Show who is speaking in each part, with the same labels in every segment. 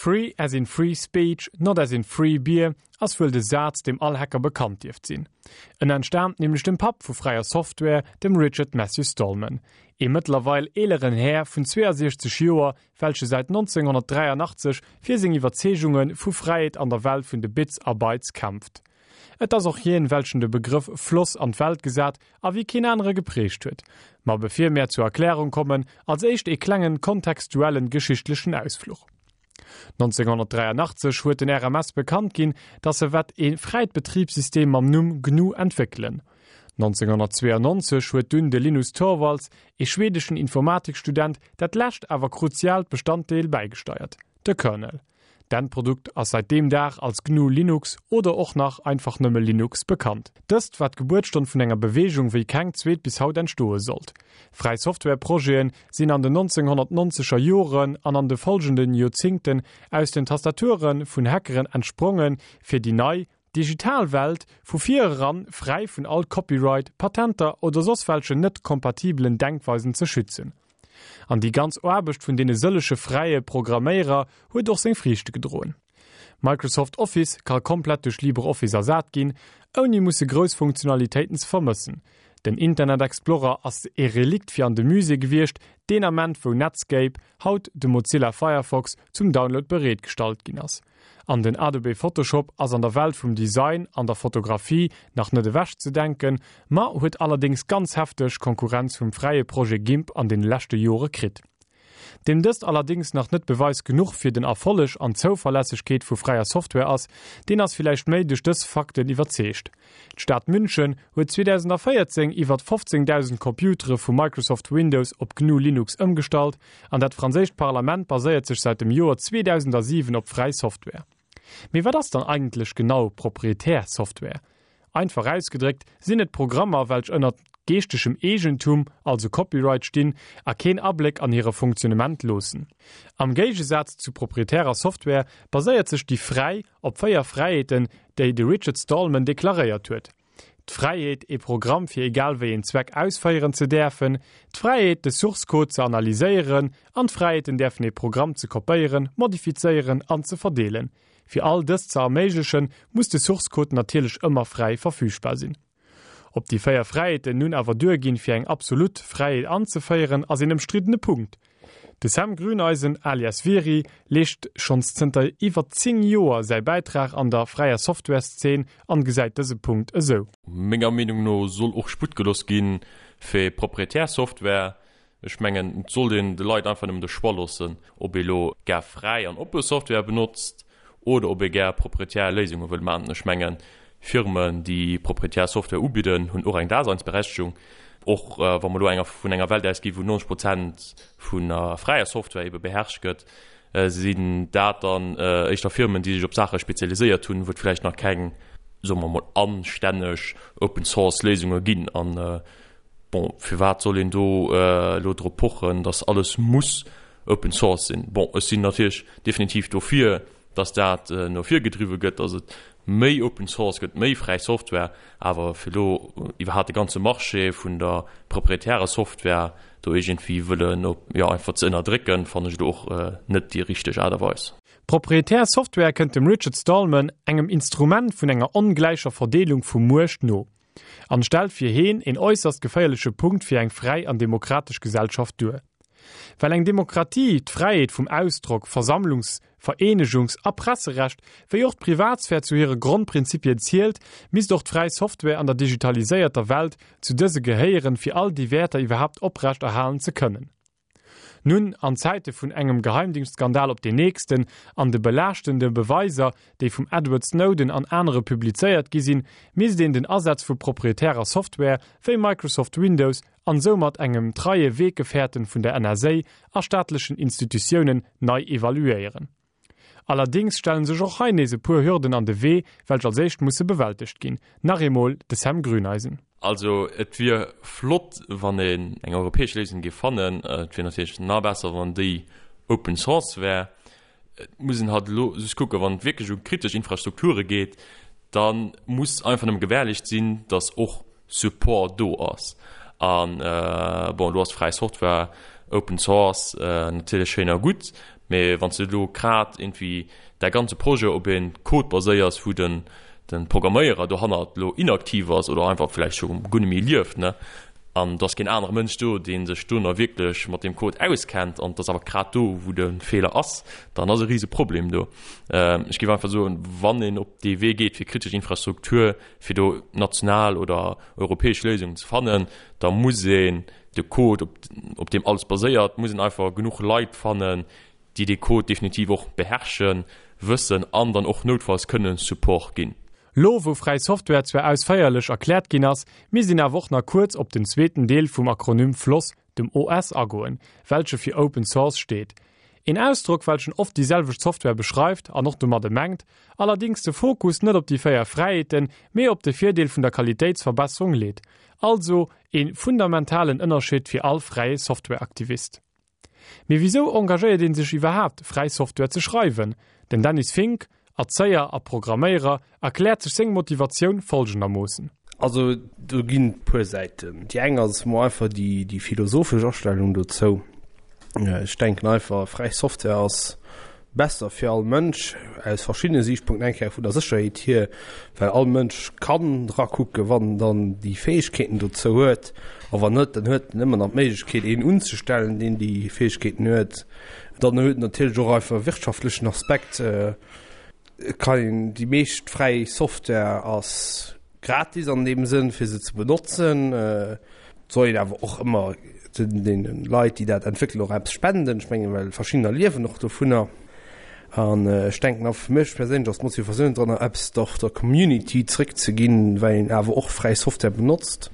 Speaker 1: Free as in free speech, not as in free beer ass wuel de Saz, deem all Hacker bekannt dierft sinn. En entstaamt nämlech dem Papp vu fräier Software, dem Richard Matthew Stallman, ee mëttlerweil eeleren Här vun 62 Joer, welche säit 1983 fir seng Iwwerzeegunge vu Fräiheet an der Welt vun de Bits a Bytes kämpft. Et ass och hien, welchen de Begrëff Floss an d'Welt gesat a wéi keen anere geprägt huet. Ma bevir mär zur Erklärung kommen, als éischt ee klengen kontextuellen geschichtlechen Ausfluch. 1983 huet den RMS bekannt ginn, dass se wett ee fräit Betribssystem mam Numm GNU entwéckelen. 1992 huet dunn de Linus Torvalds, ee schwedeschen Informatikstudent, dat lescht awer kruziaalt Bestanddeel bäigesteiert, de Kernel. D'Endprodukt ass seit deem Dag als GNU Linux oder och nach einfach nëmme Linux bekannt. Dëst war d'Gebuertsstonn vun enger Beweegung wéi keng zweet bis haut entstoe sollt. Fräi Software Projeten sinn an den 1990er Joren an an de folgenden Joerzingten aus den Tastature vun Hackeren entsprongen fir déi nei, digital Welt vu vir eran fräi vun all Copyright, Patenter oder soss welchen net kompatibelen Denkweisen ze schützen. An déi ganz Aarbecht vun deene sëlleche fräie Programméierer huet och seng Friichte gedroen. Microsoft Office ka komplett duerch LibreOffice ersat ginn, ouni musse grouss Funktionalitéiten ze vermëssen. Den Internet Explorer ass e Relikt fir an de Musée gewiescht, deen Ament wou Netscape, haut de Mozilla Firefox, zum Download bereet gestallt ginn ass. An den Adobe Photoshop ass an der Welt vum Design an der Fotografie nach net ewech ze denken, ma huet allerdéngs ganz hefteg Konkurrenz vum fräie Projet Gimp an den leschte Jore kritt. Deem dëst allerdéngs nach net Beweis genuch fir den Erfolleg an d'Zouverlässegkeet vu fräier Software ass, deen ass villäicht méi duerch dës Fakten iwwerzeegt. D'Stad München huet 2014 iwwert 15.000 Computere vu Microsoft Windows op GNU Linux ëmgestallt an dat franséischt Parlament baséiert sech säit dem Joer 2007 op fräi Software. Mee wat ass dann eigentlech genau proprietär Software? Einfach ausgedréckt sinn et Programmer welch ënnert geeschtegem Eegentum, also Copyright, stinn a keen Abléck an hire Funktionnement loossen. Am Géigesaz zu proprietärer Software baséiert sech déi fräi op 4 Fräiheeten, déi de Richard Stallman deklaréiert huet, d'Fräiheet, ee Programm fir egal wéi een Zweck ausféieren ze däerfen, d'Fräiheet, de Source Code ze analyséieren an d'Fräiheet, en däerfen ee Programm ze kopéieren, modifizéieren an ze verdeelen. Fir all dëst ze erméiglechen, muss de Source Code natierlech ëmmer fräi verfügbar sinn. Ob déi 4 Fräiheeten nun awer duerginn, fir eng absolut Fräiheet anzeféieren, ass een ëmstriddene Punkt. De Sam Grüneisen alias Vieri leescht schonns zënter iwwer 10 Joer säi Bäitrag an der fräier Software-Szene an gesäit dëse Punkt esou.
Speaker 2: Menger Meenung no soll och Sputt gelooss gi fir proprietär Software. Ech mengen, et sollt een de Leit einfach nëmmen de Choix loossen, ob ee lo gär fräi an oppe Software benotzt oder ob ee gär proprietär Léisunge wëll maachen. Ech mengen, Firmen, déi proprietär Software ubidden, hunn och eng Daseinsberechtegung. Och wa mer elo enger vun enger Welt ausgi wou 90 Prozent vun der fräier Software ebe beherrscht gëtt, sinn dat dann éischter Firmen, déi sech op Saache spezialiséiert hunn, wou et vläicht nach keng, soe mer emol, anstänneg Open-Source-Léisunge ginn. An Bon, firwat soll een do elo drop pochen, dass alles muss Open Source sinn? Bon, ech sinn natierlech definitiv dofir, dass dat no vir gedriwwe gëtt, dass et méi Open Source gëtt, méi fräi Software, awer fir elo iwwerhaapt de ganze Marché vun der proprietärer Software do iergendwéi wëllen, jo, einfach ze ënnerdrécken, fannen ech elo och net déi richteg Aart a Weis.
Speaker 1: Proprietär Software kënnt dem Richard Stallman, engem Instrument vun enger ongläicher Verdeelung vu Muecht no. An stellt fir heen een äusserst geféierleche Punkt fir eng fräi an demokratesch Gesellschaft duer. Well eng Demokratie d'Fräiheet vum Ausdrock, Versammlungs-, Vereenegungs a Presserecht wéi och d'Privatsphär zu hire Grondprinzipien zielt, misst och d'fräi Software an der digitaliséierter Welt zu dëse gehéieren, fir all déi Wäerter iwwerhaapt oprecht erhalen ze kënnen. Nun, an Zäite vun engem Geheimdingschtskandal op deen nächsten an de belaaschtende Beweiser, déi vum Edward Snowden an anere publizéiert gi sinn, misst een den Asaz vu proprietärer Software wéi Microsoft Windows an soumat engem treie Weggefährten vun der NSA a staatlechen Institutiounen nei evaluéieren. Allerdéngs stellen sech och hei nees e puer Hürden an de Wee, welch als éischt musse bewältegt ginn. Nach eemol de Sam Grüneisen.
Speaker 2: Also et wier flott, wann een eng europäesch Léisung géif fannen. Et wier natierlech nach besser, wann déi Open Source wär. Et muss een halt elo just kucken, wann et wierklech u kritesch Infrastrukture geet, da muss einfach nëmme gewährleescht sinn, datt och Support do ass. An bon, elo ass fräi Software, Open Source natierlech schéin a gutt. Mee wann s de elo grad iergendwéi däi ganze Projet op ee Code baséiers, wou den de Programméierer dohannert elo inaktiv ass oder einfach vläicht scho guer net méi lieft, ne, an et ass keen anere Mënsch do, dee sech do nach wierklech mat deem Code auskennt, an et ass awer grad do, wou de Feeler ass, dann ass e rise Problem do. Ech géif einfach soen, wann een op dee Wee geet fir kritesch Infrastruktur, fir do national oder europäesch Léisungen ze fannen, da muss een de Code, op deem alles baséiert, muss een einfach genuch Leit fannen, déi dee Code definitiv och beherrschen, wëssen an dann och noutfalls kënnen Support ginn.
Speaker 1: Lo wou fräi Software zwar ausféierlech erkläert ginn ass, misst een awer och nach kuerz op den zweeten Deel vum Akronym FLOSS, dem OS, agoen, welche fir Open Source steet. Een Ausdrock welchen oft déi selwecht Software beschreift an och domadde mengt, allerdings de Fokus net op déi 4 Fräiheeten, mee op de Virdeel vun der Qualitéitsverbesserung leet. Also een fundamentalen Ënnerscheed fir all fräie Softwareaktivist. Mee wisou engagéiert een sech iwwerhaapt, fräi Software ze schreiwen? Den Dennis Fink, Erzéier a Programméierer, erkläert sech seng Motivatioun folgendermoossen.
Speaker 3: Also do ginn et puer Säiten. Déi eng ass mol einfach déi déi philosophesch Astellung dozou. Ech denken einfach, fräi Software ass besser fir all Mënsch aus verschiddene Siichtpunkten, eng Kéier vun der Sécherheet hier, well all Mënsch kann dra kucken, wann en dann déi Fäegkeeten dozou huet, a wann net, dann huet en ëmmer nach d'Méiglechkeet een unzestellen, deen déi Fäegkeeten huet. Dann huet en natierlech och einfach e wirtschaftlechen Aspekt. Et kann een, déi meescht fräi Software ass gratis an deem Sënn fir se ze benotzen. Et soll een awer och ëmmer deene Leit, déi dat entwéckelen, och eppes spenden. Ech mengen, well verschiddener liewen och dovunner. An ech denken a fir mech perséinlech ass d'Motivatioun dran, eppes och der Community zréckzeginn, well een awer och fräi Software benotzt.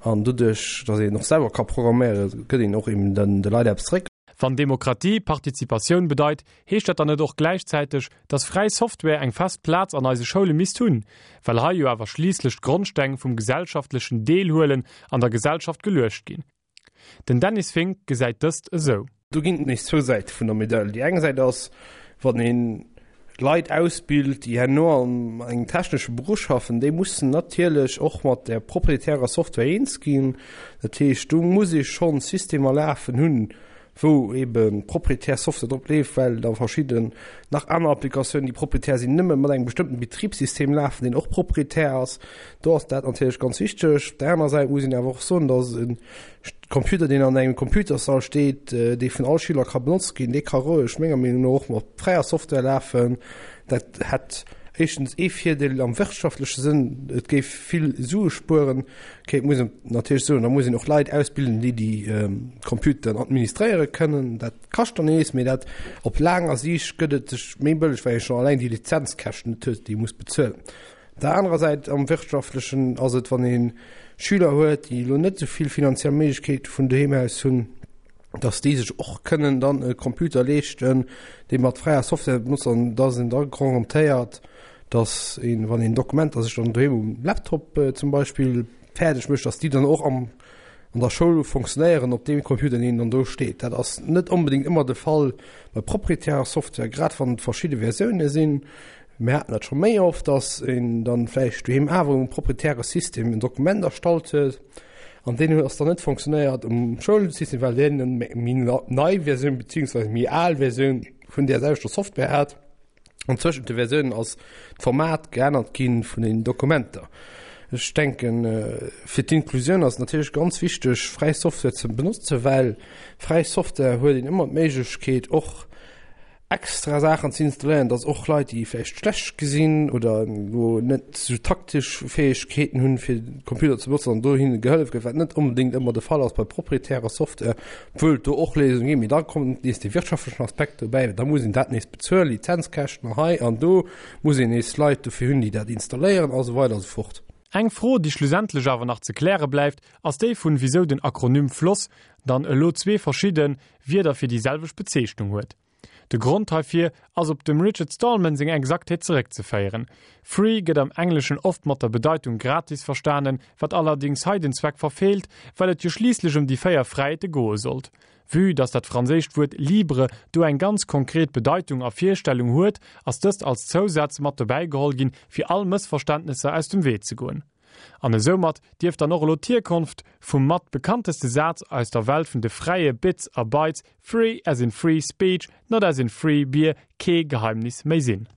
Speaker 3: An doduerch, datt een och selwer ka programméieren, gëtt een och eben den de Leit eppes zréck.
Speaker 1: Wann Demokratie Partizipatioun bedeit, heescht dat dann net och gläichzäiteg, dass fräi Software eng fest Plaz an eise Schoule misst hunn, well hei jo awer schliisslech d'Grondsteng vum gesellschaftlechen Deelhuelen an der Gesellschaft geluecht ginn? Den Dennis Fink gesäit dëst esou.
Speaker 3: Do ginn et nees zwou Säite vun der Medail. Déi eng Säit ass, wann ee Leit ausbilt, déi herno an engem technesche Beruff schaffen, déi mussen natierlech och mat där proprietärer Software eens ginn. Dat heescht, do muss ee schonn Systemer lafen hunn, wou ebe proprietär Software drop leeft, well da verschidden nach aner Applikatiounen, déi proprietär sinn, nëmme mat engem bestëmmten Betribssystem lafen, deen och proprietär ass. Do ass dat natierlech ganz wichteg. Op där anerer Säit muss een awer och soen, dass e Computer, deen an engem Computerssall steet, dee vun all Schüler ka benotzt ginn, dee ka roueg, menger Meenung no, och mat fräier Software lafen. Dat hätt éischtens ee Virdeel am wirtschaftleche Sënn, et géif vill Sue spueren. Ok, et muss een natierlech soen, da muss een och Leit ausbilden, déi déi Computeren administréiere kënnen. Dat kascht dann nees, mee dat op laanger Siicht gëtt et sech méi bëlleg, well ee schonn alleng déi Lizenzkäschten net huet, déi ee muss bezuelen. Op der anerer Säit, am Wirtschaftlechen ass et, wann ee Schüler huet, déi elo net esou vill finanziell Méiglechkeete vun doheem aus hunn, dass déi sech och kënnen dann e Computer leeschten, dee mat fräier Software benotzt an dass een da garantéiert, dass een, wann een Dokumenter sech dann doheem um Laptop zum Beispill fäerdeg mécht, dass déi dann och am, an der Schoul funktionéieren op deem Computer, deen dann do steet. Dat ass net onbedéngt ëmmer de Fall bei proprietärer Software, grad wann et verschidde Versioune sinn. Mir haten dat scho méi oft, dass een dann vläicht doheem awer um proprietäre System en Dokument erstallt huet an deen huet ass dann net funktionéiert um Schoulsystem, well deen eng méi nei Versioun beziehungsweise méi al Versioun vun där selwechter Software hat. An zwëschent de Versiounen ass d'Format geännert gi vun den Dokumenter. Ech denken, fir d'Inklusioun ass et natierlech ganz wichteg, fräi Software ze benotzen, well fräi Software huet een ëmmer d'Méiglechkeet och extra Saachen ze installéieren, dass och Leit, déi vläicht schlecht gesinn oder elo net esou taktesch Fäegkeeten hunn, fir de Computer ze benotzen, an do hinne gehëllef gëtt, wat net onbedéngt ëmmer de Fall ass bei proprietärer Software, obwuel et do och Léisungen ginn. Mee da kommt nees dee wirtschaftlechen Aspekt dobäi, well da muss een dat nees bezuelen, Lizenzkäschten hei an do, muss een nees Leit dofir hunn, déi dat installéieren a sou weider a sou fort.
Speaker 1: Eng Fro, déi schlussendlech awer nach ze kläre bleift, ass déi vun wisou den Akronym FLOSS dann elo zwee verschidde Wierder fir déi selwecht Bezeechnung huet. De Grond heifir ass op dem Richard Stallman seng Exaktheet zeréckzeféieren. Free gëtt am Engleschen oft mat der Bedeitung gratis verstanen, wat allerdings hei den Zweck verfeelt, well et jo schliisslech ëm déi 4 Fräiheete goe sollt. Vue dass dat franséischt Wuert libre do eng ganz konkret Bedeitung a Virstellung huet, ass dëst als Zousaz mat dobäi geholl ginn, fir all Mëssverständnesser aus dem Wee ze goen. An esoumat dierft dann och elo d'Hierkonft vum mat bekannteste Saz aus der Welt vun de fräie Bits a Bytes, Free as in free speech, not as in free beer, kee Geheimnis méi sinn.